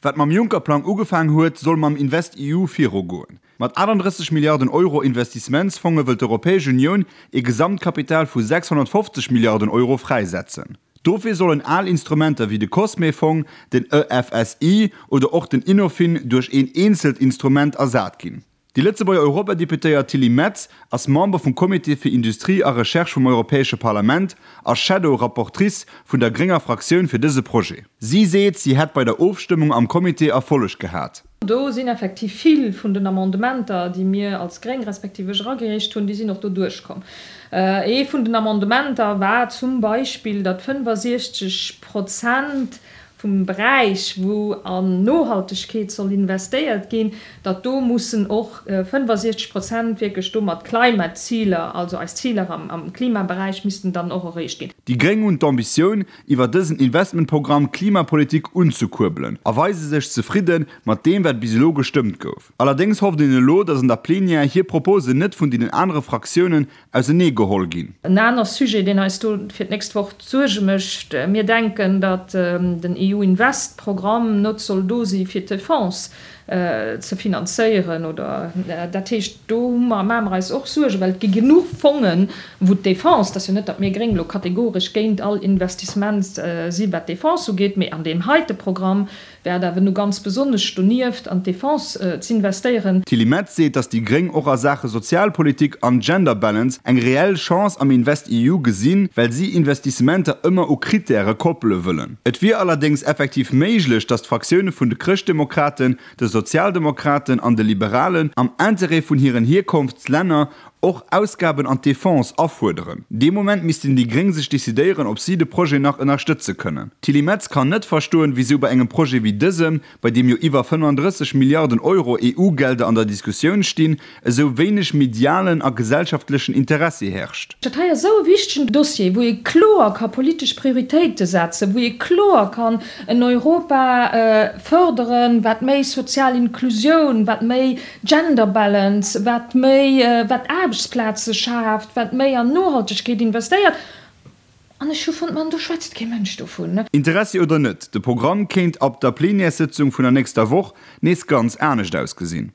Wat mam Juncker-Plang ugefaang huet, soll mam InvestEU virugoen. Mat 38 Milliarden Euro Investissementsfonge wëll d'Europäesch Unioun ee Gesamtkapital vu 650 Milliarden Euro fräisetzen. Dofir sollen al Instrumenter wéi de COSME-Fong, den EFSI oder och den Innofin duerch een eenzelt Instrument ersat ginn. Déi Lëtzebuerger Europadeputéiert Tilly Metz ass Member vum Comité fir Industrie a Recherche vum Europäesche Parlament a Shadow Rapportrice vun der grénger Fraktioun fir dëse Projet. Si seet, si hätt bei der Ofstëmmung am Comité Erfolleg gehat. Do sinn effektiv vill vun den Amendementer, déi mir als Gréng respektiv ech eragereecht hunn, déi sinn och do duerchkomm. Ee vun den Amendementer war zum Beispill, datt 65 Prozent vum Beräich, wou an Nohaltegkeet soll investéiert ginn, datt do mussen och 65 Prozent wierklech do mat Climate-Ziler, also eis Ziler am Klimaberäich missten dann och erreecht ginn. Déi Gréng hunn d'Ambitioun, iwwer dësen Investmentprogramm d'Klimapolitik unzekuerbelen a weise sech zefridde mat deem, wat bis elo gestëmmt gouf. Allerdéngs hofft een elo, datt an der Plenière hir Proposen net vun deenen anere Fraktiounen ausenee geholl ginn. En aner Sujet, deen eis do fir d'nächst Woch Suerge mécht, Mir denken, datt den EU-Invest-Programm net soll do si fir d'Defense ze finanzéieren oder dat heescht, do hu mer, maache mer eis och Suergen, well et gi genuch Fongen, wou d'Defense, et ass jo net, datt mir Gréng elo kategoresch géint all Investissement si wat d'Defense ugeet, mee an deem heite Programm Wär et awer nu ganz besonnesch donieft an d'Defense z'investéieren. D'Tilly Metz seet, datt déi Gréng och a Saache Sozialpolitik an Gender Balance eng reell Chance am InvestEU gesinn, well si Investissementer ëmmer u Krittäre koppele wëllen. Et wier allerdéngs effektiv méiglech, datt d'Fraktioune vun de Chrëschtdemokraten, de Sozialdemokraten an de Liberalen am Interêt vun hiren Hierkonftslänner och Ausgaben an d'Defense afuerderen. Dee Moment missten déi Gréng sech decidéieren, ob si de Projet nach ënnerstëtze kënnen. D'Tilly Metz kann net verstoen, wisou bei engem Projet wéi dësem, bei deem jo iwwer 35 Milliarden Euro EU-Gelder an der Diskussioun stinn, esou wéineg medialen a gesellschaftlechen Interessi herrscht. Dat hei ass esou e wichtegen Dossier, wou ee kloer ka politesch Prioritéite setzen, wou ee kloer kann en Europa fërderen, wat méi sozial Inklusioun, wat méi Gender Balance, wat méi, wat Aarbechtsplaze schaaft, wat méi an Nohaltegkeet investéiert. An ech hu fonnt, Mann, do schwätzt kee Mënsch dovun. Interessi oder net, de Programm kéint ab der Plenièressëtzung vun der nächster Woch nees ganz anescht ausgesinn.